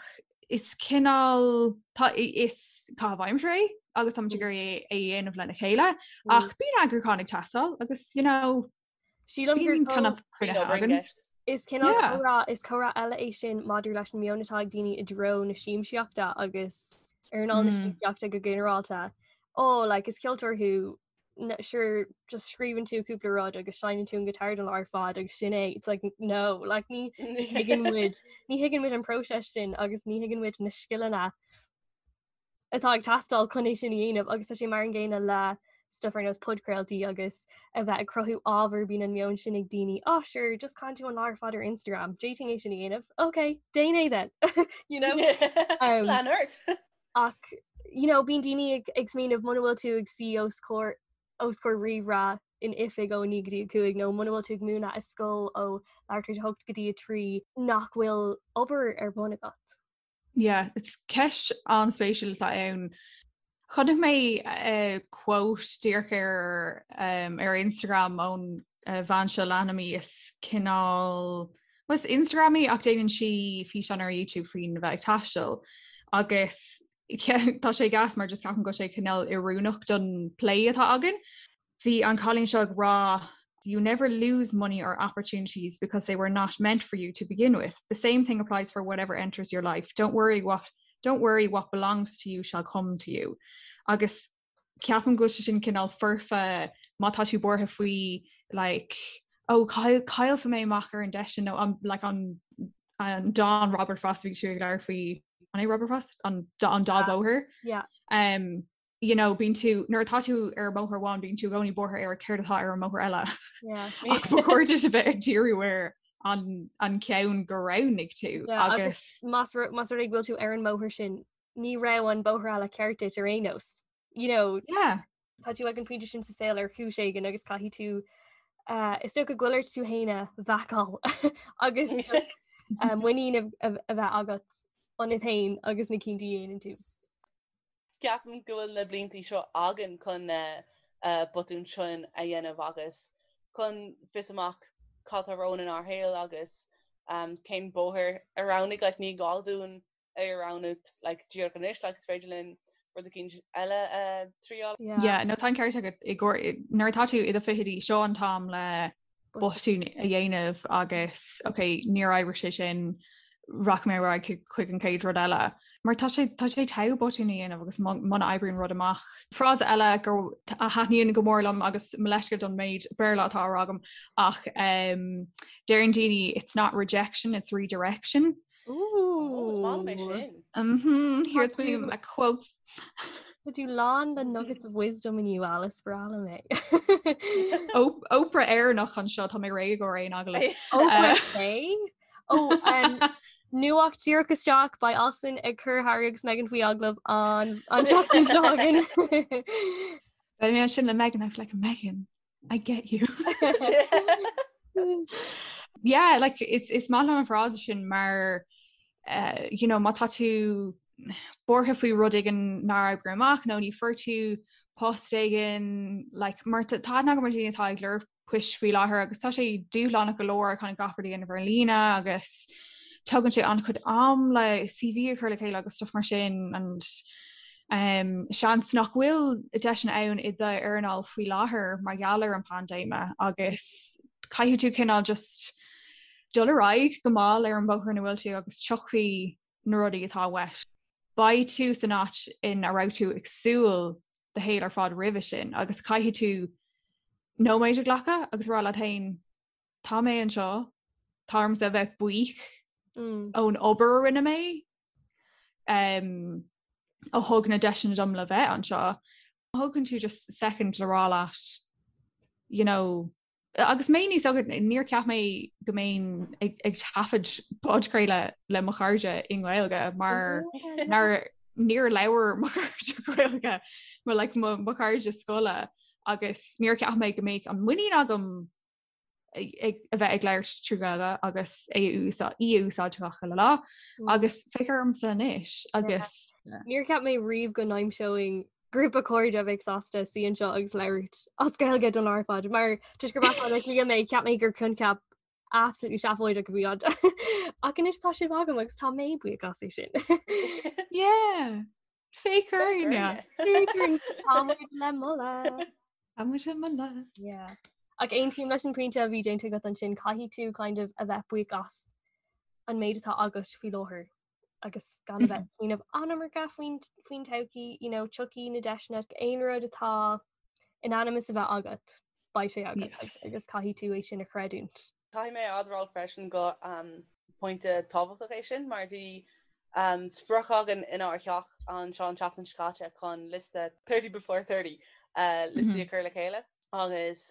is cineál tá is caitheamh aimsire é agus táimid ag iarraidh é a dhéanamh lena chéile Mm. ach bíonn eagrúchán ag teastáil agus you know Sílim gur bíonn kind of Bíonn cruinnithe obair i againn. gceist. Is cineál Yeah. comhrá is comhrá eile é sin maidir leis an meon atá ag daoine i dtreo na siamsaíochta agus earnáil na Mm. siamsaíochta go ginearálta. Oh, like is ceoltóir thú sure just scríobhann tú cúpla rud agus seinneann tú an guitar don lá ar fad agus sin é it's like no like ní thuigeann muid ní thuigeann muid an próiseas sin agus ní thuigeann muid na scileanna atá ag teastáil chun é sin a dhéanamh agus tá sé mar an gcéanna le stuff ar nós podchraoltaí agus a bheith ag cruthú ábhar bíonn an meon sin ag daoine oh sure just canann tú an lá ar fad ar Instagram d'fhéadfainn é sin a dhéanamh okay déan é then you know um, Lean ort. Ach you know bíonn daoine ag ag smaoineamh muna bhfuil tú ag suí os comhair os comhair ríomhaire in oifig ó 9 go dtí 5 nó muna bhfuil tú ag múineadh i scoil ó leathuair tar éis a 8 go dtí 3 nach bhfuil obair ar bun agat. Yeah, it's ceist an-spéisiúil atá ann. Chonaic mé uh, quote díreach ar um, ar Instagram ón uh, bhean seo leanaim í is cineál Well, is Instagramaí ach déanann sí físeán ar YouTube faoin bheith ag taisteal agus tá sé gas mar just ceapaim go bhfuil sé cineál oiriúnach don plé atá againn. Bhí an cailín seo ag rá you never lose money or opportunities because they were not meant for you to begin with. The same thing applies for whatever enters your life. Don't worry what don't worry what belongs to you shall come to you. Agus ceapaim go bhfuil sé sin cineál foirfe má tá tú buartha faoi like oh caillfidh mé amach ar an deis sin nó an like an an dán Robert Frost bhí tú ag labhairt faoi an é Robert Frost an an dá bhóthar yeah. um, you know, bíonn tú nuair atá tú ar bhóthar amháin bíonn tú i gcónaí buartha ar céard atá ar an mbóthar eile yeah. ach ba chóir duit a bheith ag díriú ar an an ceann gur roghnaigh tú yeah, agus más más rud é go bhfuil tú ar an mbóthar sin ní raibh an bóthar eile ceart duit ar aon nós. You know, yeah. Tá tú ag an pointe sin sa saol ar chúis éigin agus caithfidh tú uh, is dócha go bhfuil ort tú féin a bhacáil agus just, uh, muinín a, a, a bheith agat ionat féin agus na cinntí a dhéanann tú. Ceapaim go bhfuil na blianta seo againn chun na uh, botúin sin a dhéanamh agus chun fios amach cad tá romhainn inár shaol agus um, cén bóthar a roghnaigh like, ní gá dúinn é a roghnú like díreach anois like is féidir linn rud eicínt eile a triail. Yeah, no tá an ceart agat i gcóir nuair atá tú i do fichidí seo an t-am le botún a dhéanamh agus ok níor oibrigh sé sin rachaidh mé ar aghaidh chuig an chéad rud eile. Mar tá sé tá sé togha botún a dhéanamh agus muna oibríonn rud amach. Frása eile go a thaitníonn go mór liom agus mo leithscéal don méid Béarla atá á rá agam ach um, deireann daoine it's not rejection, it's redirection. Ooh. Is maith liom é sin. Mhm, here's me my quotes. Tá tú lán le nuggets of wisdom inniu Alice breá liom é. Oprah Éireannach anseo tá mé réidh ar aon agallamh. Oprah é? Ó um, nuacht díreach isteach beidh Alison ag cur Harry agus Meghan faoi agallamh an an tseachtain seo chugainn. Beidh mé ansin le Meghan I'm like Meghan I get you. yeah, like is is maith liom an frása sin mar uh, you know, má tá tú buartha faoi rud éigin nár oibrigh amach nó ní fuair tú post éigin like, mar tá aithne agam ar dhaoine atá ag lorg poist faoi láthair agus tá sé dúshlánach go leor chun gach rud a dhéanamh ar líne agus tugann sé an-chuid am le CV a chur le chéile agus stuff mar sin and um, seans nach bhfuil deiseanna ann i d'earnáil faoi láthair mar gheall ar an paindéime agus caithfidh tú cineál just dul ar aghaidh go mall ar an bóthar ina bhfuil tú agus tiocfaidh na rudaí atá uait. Beidh tú san áit ina raibh tú ag súil do shaol ar fad roimhe sin agus caithfidh tú nóiméad a ghlacadh agus rá leat féin tá mé anseo, tá ormsa a bheith buíoch mm. ón obair a rinne mé um, a thug na deiseanna dom le bheith anseo. Thógann tú just second le rá leat you know, agus mé níos óige níor cheap mé go mbeinn ag, ag taifead podchraoladh le mo chairde i nGaeilge mar nar níor labhair mo chairde Gaeilge mo like, mo, mo chairde scoile. Agus níor cheap mé go mbeadh an muinín agam ag a bheith ag labhairt trí Ghaeilge agus é a úsáid í a úsáid gach uile lá mm. agus féach ormsa anois agus Níor cheap mé riamh go n-aimseoinn grúpa cairde a bheadh sásta suí anseo agus labhairt as Gaeilge don lá ar fad mar toisc gur as Baile Átha Cliath mé cheap mé gur coincheap absolutely seafóideach a bhí ann. Ach anois tá sibh agam agus tá mé buíoch as é sin. Yeah. Féach orainne. Tá muid le moladh. Tá muid le moladh. Yeah. Ach aontaím leis an pointe a bhí déanta agat ansin caithfidh tú kind of a bheith buíoch as an méid atá agat faoi láthair agus gan a bheith ag smaoineamh an iomarca faoin faoin todhchaí, you know, tiocfaidh na deiseanna aon rud atá in ainm is a bheith agat, beidh sé agat Yes. agus caithfidh tú é sin a chreidiúint. Caithfidh mé a admháil freisin go pointe tábhachtach é sin mar bhí sprioc againn inár theach anseo an tseachtain seo caite chun liosta 30 before 30 liostaí a chur le chéile agus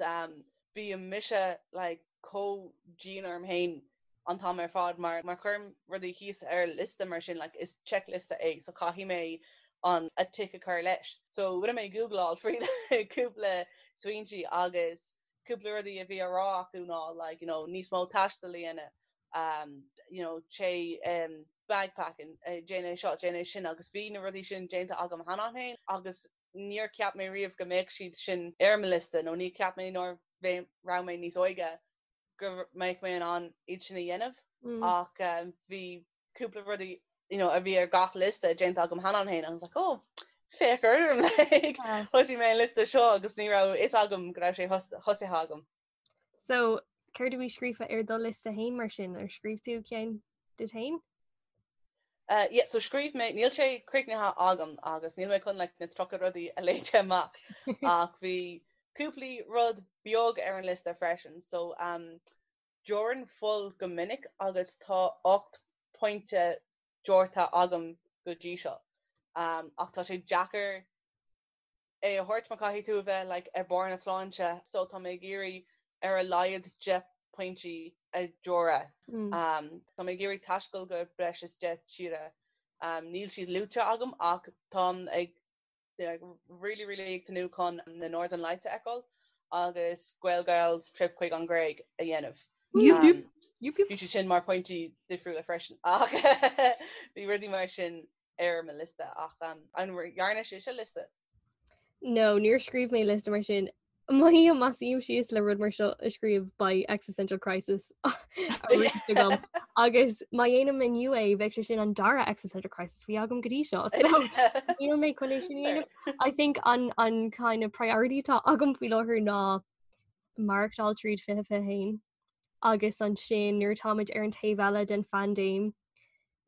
bíonn mise like chomh dian orm féin an t-am ar fad mar má chuirim rudaí thíos ar liosta mar sin like is checkliosta é so caithfidh mé an a tick a chur leis. So rinne mé googleáil fríd cúpla smaointí agus cúpla rudaí a bhí á rá acu ná like you know níos mó taistil a dhéanamh um you know téigh um bagpacking eh, déan é seo déan é sin agus bhí na rudaí sin déanta agam cheana féin agus níor cheap mé riamh go mbeadh siad sin ar mo liosta nó ní cheap mé nuair a raibh mé níos óige go mbeadh mé in ann iad sin a dhéanamh mm. ach um, bhí cúpla rudaí you know, a bhí ar gach liosta déanta agam cheana féin and I was like oh féach orm like thosaigh mé an liosta seo agus ní raibh fhios agam go raibh sé thosaithe agam. So céard a bhí scríofa ar do liosta féin mar sin ar scríobh tú ceann duit féin? Uh, yeah, so scríobh mé níl sé críochnaithe agam agus níl mé chun like, na 30 rudaí a léamh amach ach bhí cúpla rud beag ar an liosta freisin so um, Deoraim fuil go minic agus tá 8 pointe deortha agam go dtí seo. Ach tá sé deacair é a thabhairt mar caithfidh tú a bheith like ar barr na sláinte so tá mé ag iarraidh ar a laghad 10 pointí a dheoradh. Tá mé ag iarraidh taisteal go breis is 10 tíre. Níl siad luaite agam ach táim ag really really ag tnúth chun na Northern Lights a fheiceáil agus Gaelgals trip chuig an Ghréig a dhéanamh. Bhí siad sin mar pointí difriúla freisin ach bhí rudaí mar sin ar mo liosta ach an ndearna sibhse liosta? No, níor scríobh mé liosta mar sin. Mothaím má suím síos le rud mar seo a scríobh beidh existential crisis arís agam. Agus má dhéanaim inniu é bheidh sé sin an dara existential crisis a bhí agam go dtí seo. So níl mé chun é sin a dhéanamh. I think an an kind of priority atá agam faoi láthair ná maireachtáil tríd 2021 agus ansin nuair atáimid ar an taobh eile den phaindéim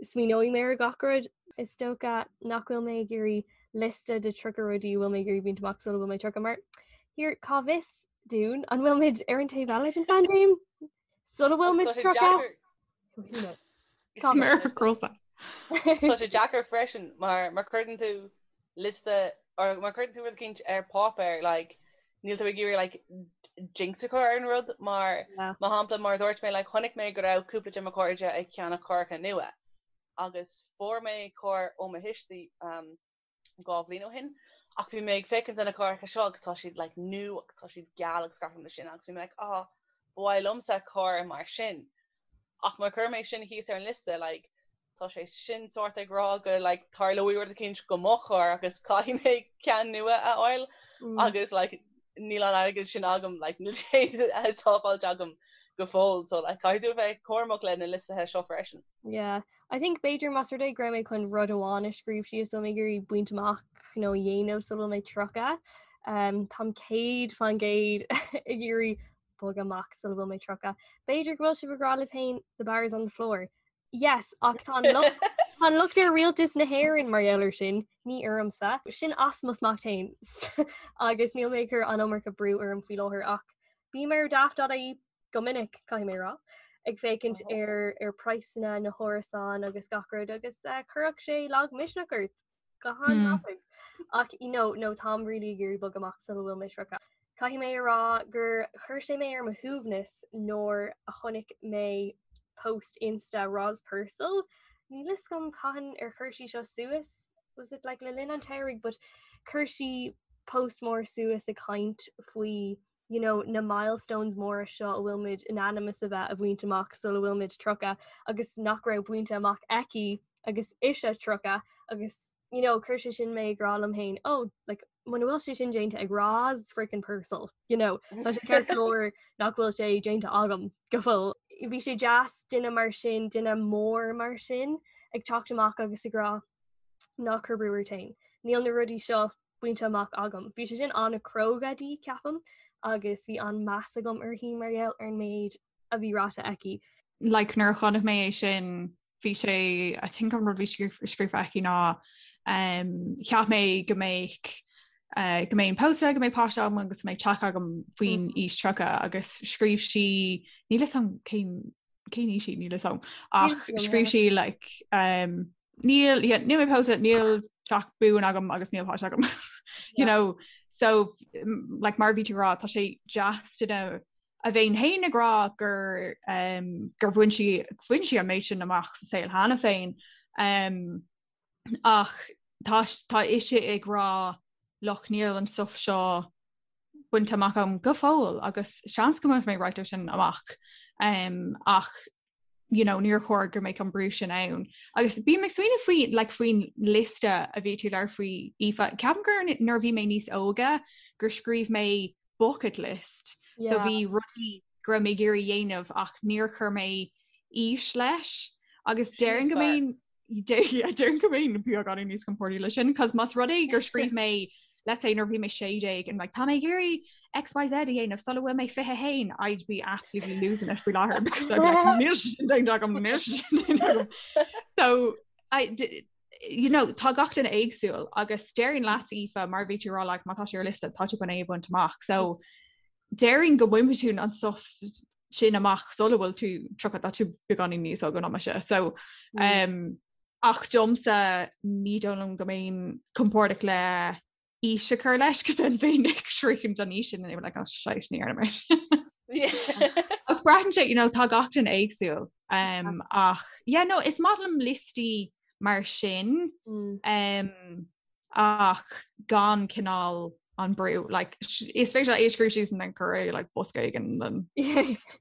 Smaoineoidh mé ar gach rud. Is dócha nach bhfuil mé ag iarraidh liosta de 30 rudaí a bhfuil mé ag iarraidh baint amach sula bhfuil mé 30 mar here cá bhfios dúinn an bhfuil muid ar an taobh eile den phaindéim sula bhfuil muid 30? Cá bhfios? Tá sé deacair freisin mar má chuireann tú liosta or má chuireann tú rud eicínt ar páipéar like níl tú ag iarraidh like jinx a chur ar an rud mar mar shampla mar a dúirt mé like chonaic mé go raibh cúpla de mo chairde ag ceannach carracha nua agus fuair mé carr ó mo thuistí um, dhá bhliain ó shin ach bhí mé ag féachaint ar na carracha seo agus tá siad like nua agus tá siad geal agus gach rud mar sin agus bhí mé like ah ba mhaith liomsa carr mar sin ach má chuir mé sin thíos ar an liosta like Tá sé sin sórt ag rá go like tarlóidh rud eicínt go mo charr agus caithfidh mé ceann nua a fháil agus like níl an airgead sin agam like níl sé sábháilte agam go fóill so like caithfidh tú a bheith cúramach le na liostaithe seo freisin. Yeah, I think b'fhéidir más rud é go raibh mé chun rud amháin a scríobh síos a bhfuil mé ag iarraidh baint amach nó a dhéanamh sula bhfuil mé 30. Um, táim 100% ag iarraidh bogadh amach sula bhfuil mé 30. B'fhéidir go bhfuil sibh ag rá libh féin the bar is on the floor. Yes, ach tá an locht tá an locht ar rialtas na hÉireann mar gheall air sin, ní ormsa. Sin as mo smacht féin agus níl mé ag cur an iomarca brú orm faoi láthair ach bím ar daft.ie go minic, caithfidh mé a rá, ag féachaint ar ar praghsanna na hárasán agus gach rud agus eh, chuirfeadh sé lagmhisneach ort. Go han-tapaidh. Ach you know, no táim really ag iarraidh bogadh amach sula bhfuil mé 30. Caithfidh mé a rá gur chuir sé mé ar mo shuaimhneas nuair a chonaic mé post Insta Roz Purcell. Níl fhios agam cathain ar chuir sí seo suas, was it like le linn an tsamhraidh, but chuir sí. post mór suas ag caint faoi you know, na milestones móra seo a bhfuil muid in ainm is a bheith a bhaint amach sula bhfuil muid 30 agus nach raibh bainte amach aici agus ise 30 agus you know, chuir sé sin mé ag rá liom féin, oh, like, muna bhfuil sé sin déanta ag Roz freaking Purcell, you know, tá sé ceart go leor nach bhfuil sé déanta agam go fóill. Bhí sé deas duine mar sin, duine mór mar sin ag teacht amach agus ag rá ná cuir brú ort féin. Níl na rudaí seo bainte amach agam. Bhí sé sin an-chróga di, ceapaim, agus bhí an-meas agam uirthi mar gheall ar an méid a bhí ráite aici. Like nuair a chonaic mé é sin bhí sé I think an rud bhí scríofa aici ná um, cheap mé go mbeadh uh, go mbeinn pósta go mbeadh páiste agam agus go mbeadh teach agam faoin mm. aois 30 agus scríobh sí níl a fhios agam cén cén aois í níl a fhios agam ach scríobh sí like um, níl yeah, níl mé pósta níl teach buan agam agus níl páiste agam you know so like mar bhí tú rá tá sé deas duine a bheith féin ag rá gur um, gur bhain sí bhain sí an méid sin amach sa saol cheana féin um, ach tá tá ise ag rá look níl an stuff seo bainte amach agam go fóill agus seans go mbainfidh mé right sin amach um, ach you know, níor chóir go mbeadh an brú sin ann. Agus bím ag smaoineamh faoi like, faoin liosta a bhí tú ag labhairt faoi Aoife. Ceapaim gur nuair a bhí mé níos óige gur scríobh mé bucket list. Yeah. So bhí rudaí go raibh mé ag iarraidh dhéanamh ach níor chuir mé aois leis. Agus déarfainn go mbeinn déarfainn go mbeinn beagáinín níos compordaí leis sin, cos más rud é gur scríobh mé let's say nuair bhí mé 16 and like tá mé ag iarraidh XYZ a dhéanamh sula bhfuil mé 21 I'd be absolutely losing it faoi láthair because I'd be like níl sin déanta agam níl sin déanta agam. So I you know tá gach duine éagsúil agus déarfainn leat Aoife mar bhí tú rá like má tá sé ar liosta tá tú chun é a bhaint amach. So déarfainn go mbainfidh tú an stuff sin amach sula bhfuil tú 30 tá tú beagáinín níos óige ná mise. So mm. um, ach domsa ní dóigh liom go mbeinn compordach le aois a chur leis cos then bheinn ag sroichint an aois sin and like oh, shite ní dhearna mé. Ach braitheann sé you know, tá gach duine éagsúil um, ach yeah, no, is maith liom liostaí mar sin mm. um, ach gan cineál an brú like, is féidir é a scríobh síos and then cuir é like, bosca éigin then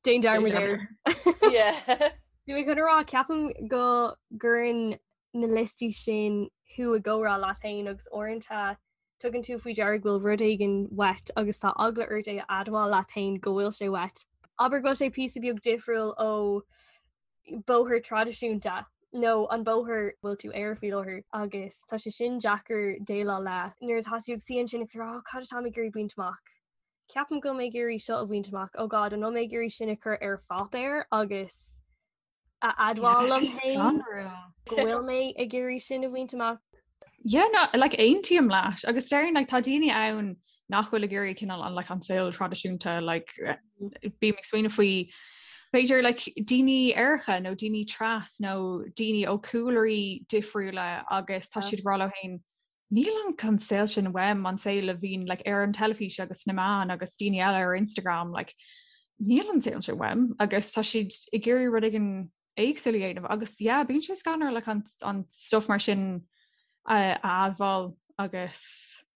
Déan dearmad air. Bhí mé chun a rá ceapaim go gcuireann na liostaí sin thú i gcomhrá leat féin agus uaireanta tugann tú faoi deara go bhfuil rud éigin uait agus tá eagla ort é a admháil leat féin go bhfuil sé uait. Abair go bhfuil sé píosa beag difriúil ó bóthar traidisiúnta nó an bóthar bhfuil tú air faoi láthair agus tá sé sin deacair déileáil le nuair atá tú ag suí ansin ag rá cad atá mé ag iarraidh baint amach. Ceapaim go bhfuil mé ag iarraidh seo a bhaint amach oh God an bhfuil mé ag iarraidh sin a chur ar pháipéar agus a admháil liom féin go bhfuil mé ag iarraidh sin a bhaint amach. Yeah, no, like aontaím leat agus déarfainn like, tá daoine ann nach bhfuil ag iarraidh cineál an like, an saol traidisiúnta like, bím ag smaoineamh faoi b'fhéidir like, daoine aeracha nó daoine tras nó daoine ó cúlraí difriúla agus tá siad ag rá leo féin níl an an saol sin uaim an saol a bhíonn like, ar an teilifís agus sna meáin agus daoine eile ar Instagram like, níl an saol sin uaim agus tá siad ag iarraidh rud éigin éagsúil a dhéanamh agus yeah bíonn sé scanrúil like an, an stuff mar sin a admháil agus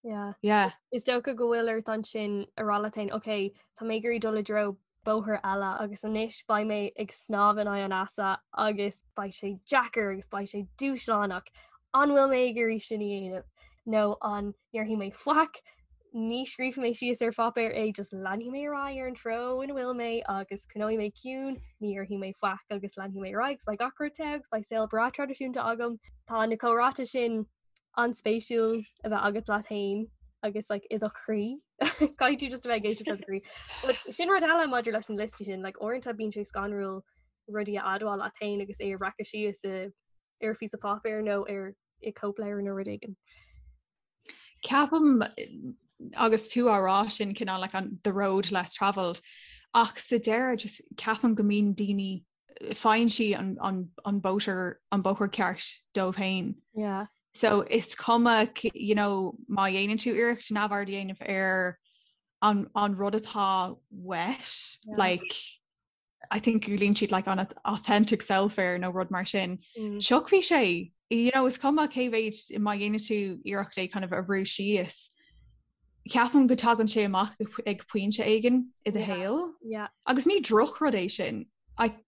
yeah. yeah. Is dócha go bhfuil ort ansin a rá leat féin ok tá mé ag iarraidh dul i dtreo bóthar eile agus anois beidh mé ag snámh in aghaidh an easa agus beidh sé deacair agus beidh sé dúshlánach. An bhfuil mé ag iarraidh sin a dhéanamh nó an ndéarfaidh mé faic ní scríobfaidh mé síos ar pháipéar é, just leanfaidh mé ar aghaidh ar an treo ina bhfuil mé agus coinneoidh mé ciúin, ní dhéarfaidh mé faic agus leanfaidh mé ar aghaidh agus beidh gach rud togha agus beidh saol breá traidisiúnta agam. Tá na comhráite sin an-spéisiúil a bheith agat leat féin agus like, i do chroí. Caithfidh tú just a bheith ag éisteacht le do chroí. But sin rud eile maidir leis na liostaí sin, like, uaireanta bíonn sé scanrúil rudaí a admháil leat féin agus é a bhreacadh síos i ar phíosa páipéir nó ar i cóipleabhar nó rud éigin. Ceapaim agus tú á rá sin cineál like an the road less travelled ach sa deireadh just ceapaim go mbíonn daoine faigheann siad an, an, an bóthar an bóthar ceart dóibh féin. Yeah. So is cuma you know, má dhéanann tú iarracht neamhaird a dhéanamh ar an, an rud atá uait yeah. like I think glaonn siad like an authentic self air nó rud mar sin. Mm. Tiocfaidh sé you know, is cuma cé mhéid má dhéanann tú iarracht é kind of a bhrú síos. Ceapaim go dtagann sé amach ag pointe éigin i do shaol. Agus ní drochrud é sin,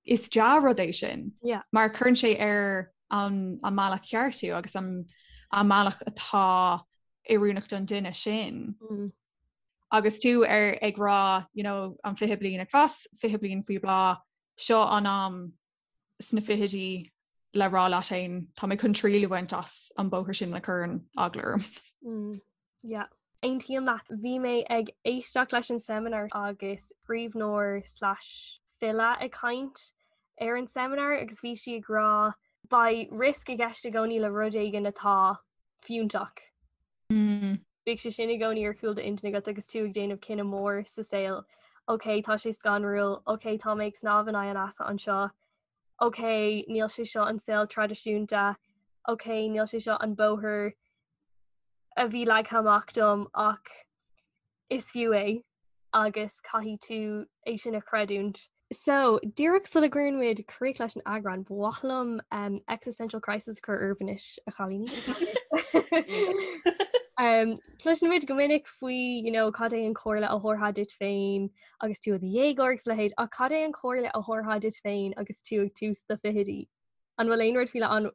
is dea-rud é sin. Mar cuireann sé ar an mbealach ceart thú agus an mbealach atá oiriúnach don duine sin. Mm. Agus tú ar ag rá you know, an 20 bliain ag fás, 20 bliain faoi bhláth, seo an am sna fichidí le rá leat féin tá mé chun triail a bhaint as an bóthar sin a chuireann eagla orm. Mm, yeah. Aontaím leat. Bhí mé ag éisteacht leis an seimineár agus scríbhneoir slash file ag caint ar an seimineár agus bhí sí ag rá beidh risk i gceist i gcónaí le rud éigin atá fiúntach. Mm. Bíodh sé sin i gcónaí ar chúl d'intinne agat agus tú ag déanamh cinneadh mór sa saol. Ok, tá sé scanrúil, ok, tá mé ag snámh in aghaidh an easa anseo, ok, níl sé seo an saol traidisiúnta, ok, níl sé seo an bóthar a bhí leagtha amach dom ach is fiú é agus caithfidh tú é sin a chreidiúint. So, díreach sula gcuireann muid críoch leis an eagrán, ba mhaith liom um, existential crisis a chur oraibh anois, a chailíní. um, Cloiseann muid go minic faoi you know, cad é an chomhairle a thabharfá duit féin agus tú i do dhéagóir agus a leithéid, ach cad é an chomhairle a thabharfá duit féin agus tú ag tús do fichidí? An bhfuil aon rud faoi leith ann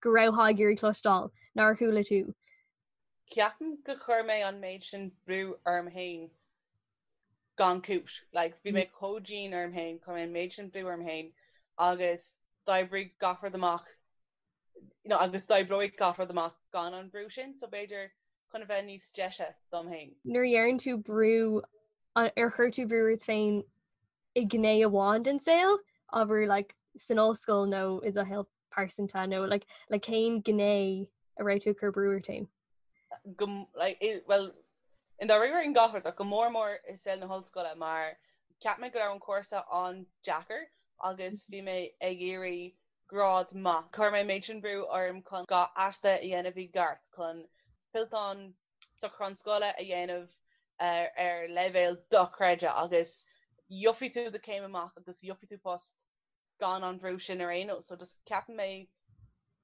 go raibheá ag iarraidh cloisteáil nár chuala tú? Ceapaim gur chuir mé an méid sin brú orm féin gan cúis. Like, bhí mé chomh dian orm féin, chuir mé an méid sin brú orm féin agus d'oibrigh gach rud amach, you know, agus d'oibreoidh gach rud amach gan an brú sin, so b'fhéidir chun a bheith níos deise dom féin. Nuair a dheireann tú brú, ar chuir tú brú ort féin i ngné amháin den saol, abair like san ollscoil nó i do shaol pearsanta nó like le cén gné a raibh tú ag cur brú ort féin? Go like well i ndáiríre in gach rud ach go mór mór i saol na hollscoile mar cheap mé go raibh an cúrsa an-deacair agus bhí mé ag iarraidh grád maith. Chuir mé an méid sin brú orm chun gach aiste a dhéanamh i gceart, chun fillteán socrúchán scoile a dhéanamh ar leibhéal dochreidte agus gheobhaidh tú do chéim amach agus gheobhaidh tú post gan an bhrú sin ar aon nós. So just ceapann mé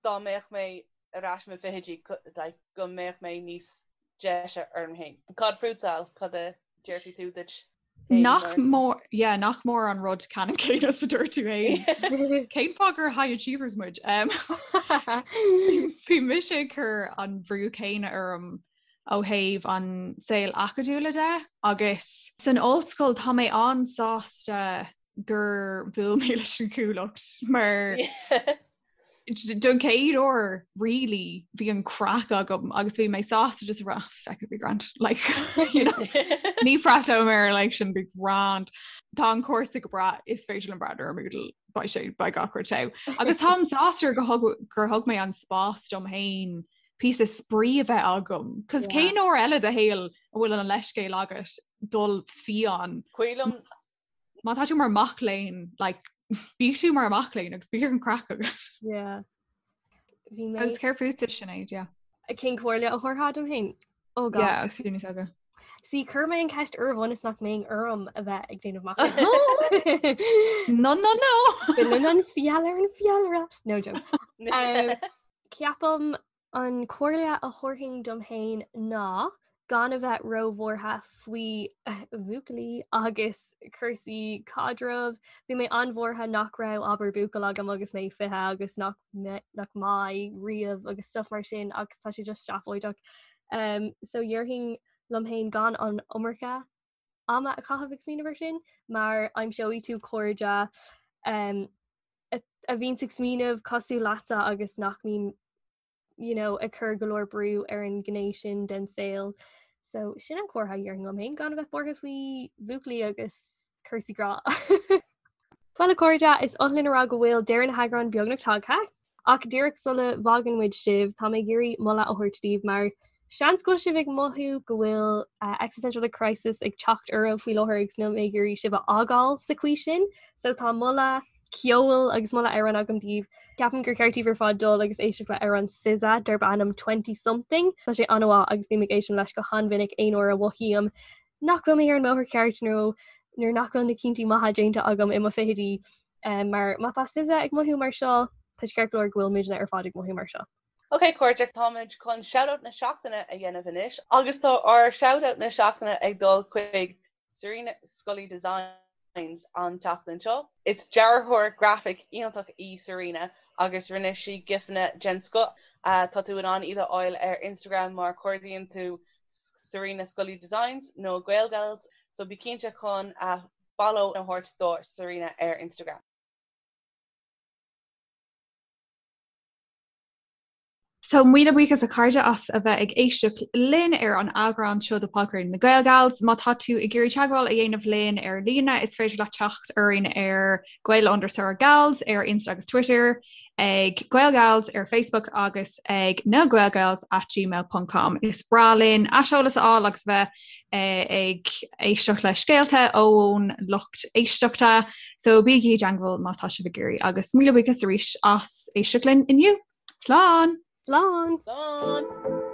dá mbeadh mé ar ais i mo fichidí like go mbeadh mé níos deise orm féin. Cad fútsa, Al? Cad a déarfaidh tú duit féin Nach mór, yeah, nach mór an rud ceannann céanna is a dúirt tú féin. Cén fáth gur high achievers muid? Um, Bhí mise ag cur an bhrú céanna orm ó thaobh an saol acadúla de agus san ollscoil tá mé an-sásta gur bhuail mé leis an Chuallacht mar don chéad uair really bhí an craic agam agus bhí mé sásta just rá feck it, be grand like you know ní freastalóidh mé ar like sin be grand Tá an cúrsa go breá is féidir liom breathnú ar Moodle beidh sé beidh gach rud togha. Agus táim sásta gur thug gur thug mé an spás dom féin píosa spraoi a bheith agam. Cos cén uair eile i do shaol a bhfuil an leithscéal agat dul fiáin. Cuilim Má tá tú mar mac léinn, like, bíodh tú mar mac léinn agus bíodh an craic agat. Yeah. Bhí mé Agus céard fútsa Sinéad, yeah. Cén comhairle a thabharfá dom féin? Oh God. Yeah, agus tú níos óige. See, chuir mé an ceist oraibh ionas nach mbeinn orm a bheith ag déanamh amach. No, no, no! Filleann an feall ar an bhfeallaire. No joke. Um, ceapaim An chomhairle a thabharfainn dom féin ná gan a bheith róbhuartha faoi bhuachaillí agus cúrsaí caidrimh. Bhí mé an-bhuartha nach raibh abair buachaill agam agus mé 20 agus nach nach mbeidh riamh agus stuff mar sin agus tá sé just seafóideach. Um, so dhéarfainn liom féin gan an iomarca ama a chaitheamh ag smaoineamh ar sin mar aimseoidh tú cairde um, a bhíonns ag smaoineamh cosúil leatsa agus nach mbíonn you know, ag cur go leor brú ar an ghné sin den saol. So sin an chomhairle a dhéarfainn liom féin gan a bheith buartha faoi bhuachaillí agus cúrsaí grá. Bhuel a chairde, is oth linn a rá go bhfuil deireadh na heagráin beagnach tagtha. Ach díreach sula bhfágann muid sibh, tá mé ag iarraidh moladh a thabhairt daoibh mar seans go bhfuil sibh ag mothú go bhfuil existential crisis ag teacht oraibh faoi láthair agus níl mé ag iarraidh sibh a fhágáil sa chaoi sin. So tá moladh ceoil agus moladh amhráin agam daoibh. Ceapaim gur cheart daoibh ar fad dul agus éisteacht le amhrán SZA darb ainm Twenty Something. Tá sé an-mhaith agus bím ag éisteacht leis go han-mhinic aon uair a mhothaím nach bhfuil mé ar an mbóthar ceart nó nuair nach bhfuil na cinntí maithe déanta agam i mo fichidí. Mar má tá SZA ag mothú mar seo, tá sé ceart go leor go bhfuil muidne ar fad ag mothú mar seo. Ok cairde, táimid chun Shoutout na Seachtaine a dhéanamh anois agus tá ár Shoutout na Seachtaine ag dul chuig Serena Scully Designs an tseachtain seo. Is dearthóir grafaic iontach í Serena agus rinne sí gifanna den scoth. Tá tú in ann iad a fháil ar Instagram má chuardaíonn tú Serena Scully Designs nó Gaelgals so bí cinnte chun follow a thabhairt do Serena ar Instagram. So, míle buíochas a chairde as a bheith ag éisteacht linn ar an eagrán seo de Podchraoladh na GaelGals. Má tá tú ag iarraidh teagmháil a dhéanamh linn ar líne, is féidir leat teacht orainn ar Gael underscore Gals ar Insta agus Twitter, ag GaelGals ar Facebook agus ag na Gaelgals at gmail ponc com. Is breá linn aiseolas a fháil agus bheith ag éisteacht le scéalta ón lucht éisteachta, so bígí i dteagmháil má tá sibh ag iarraidh agus míle buíochas arís as éisteacht linn inniu. Slán! Slán! Slán!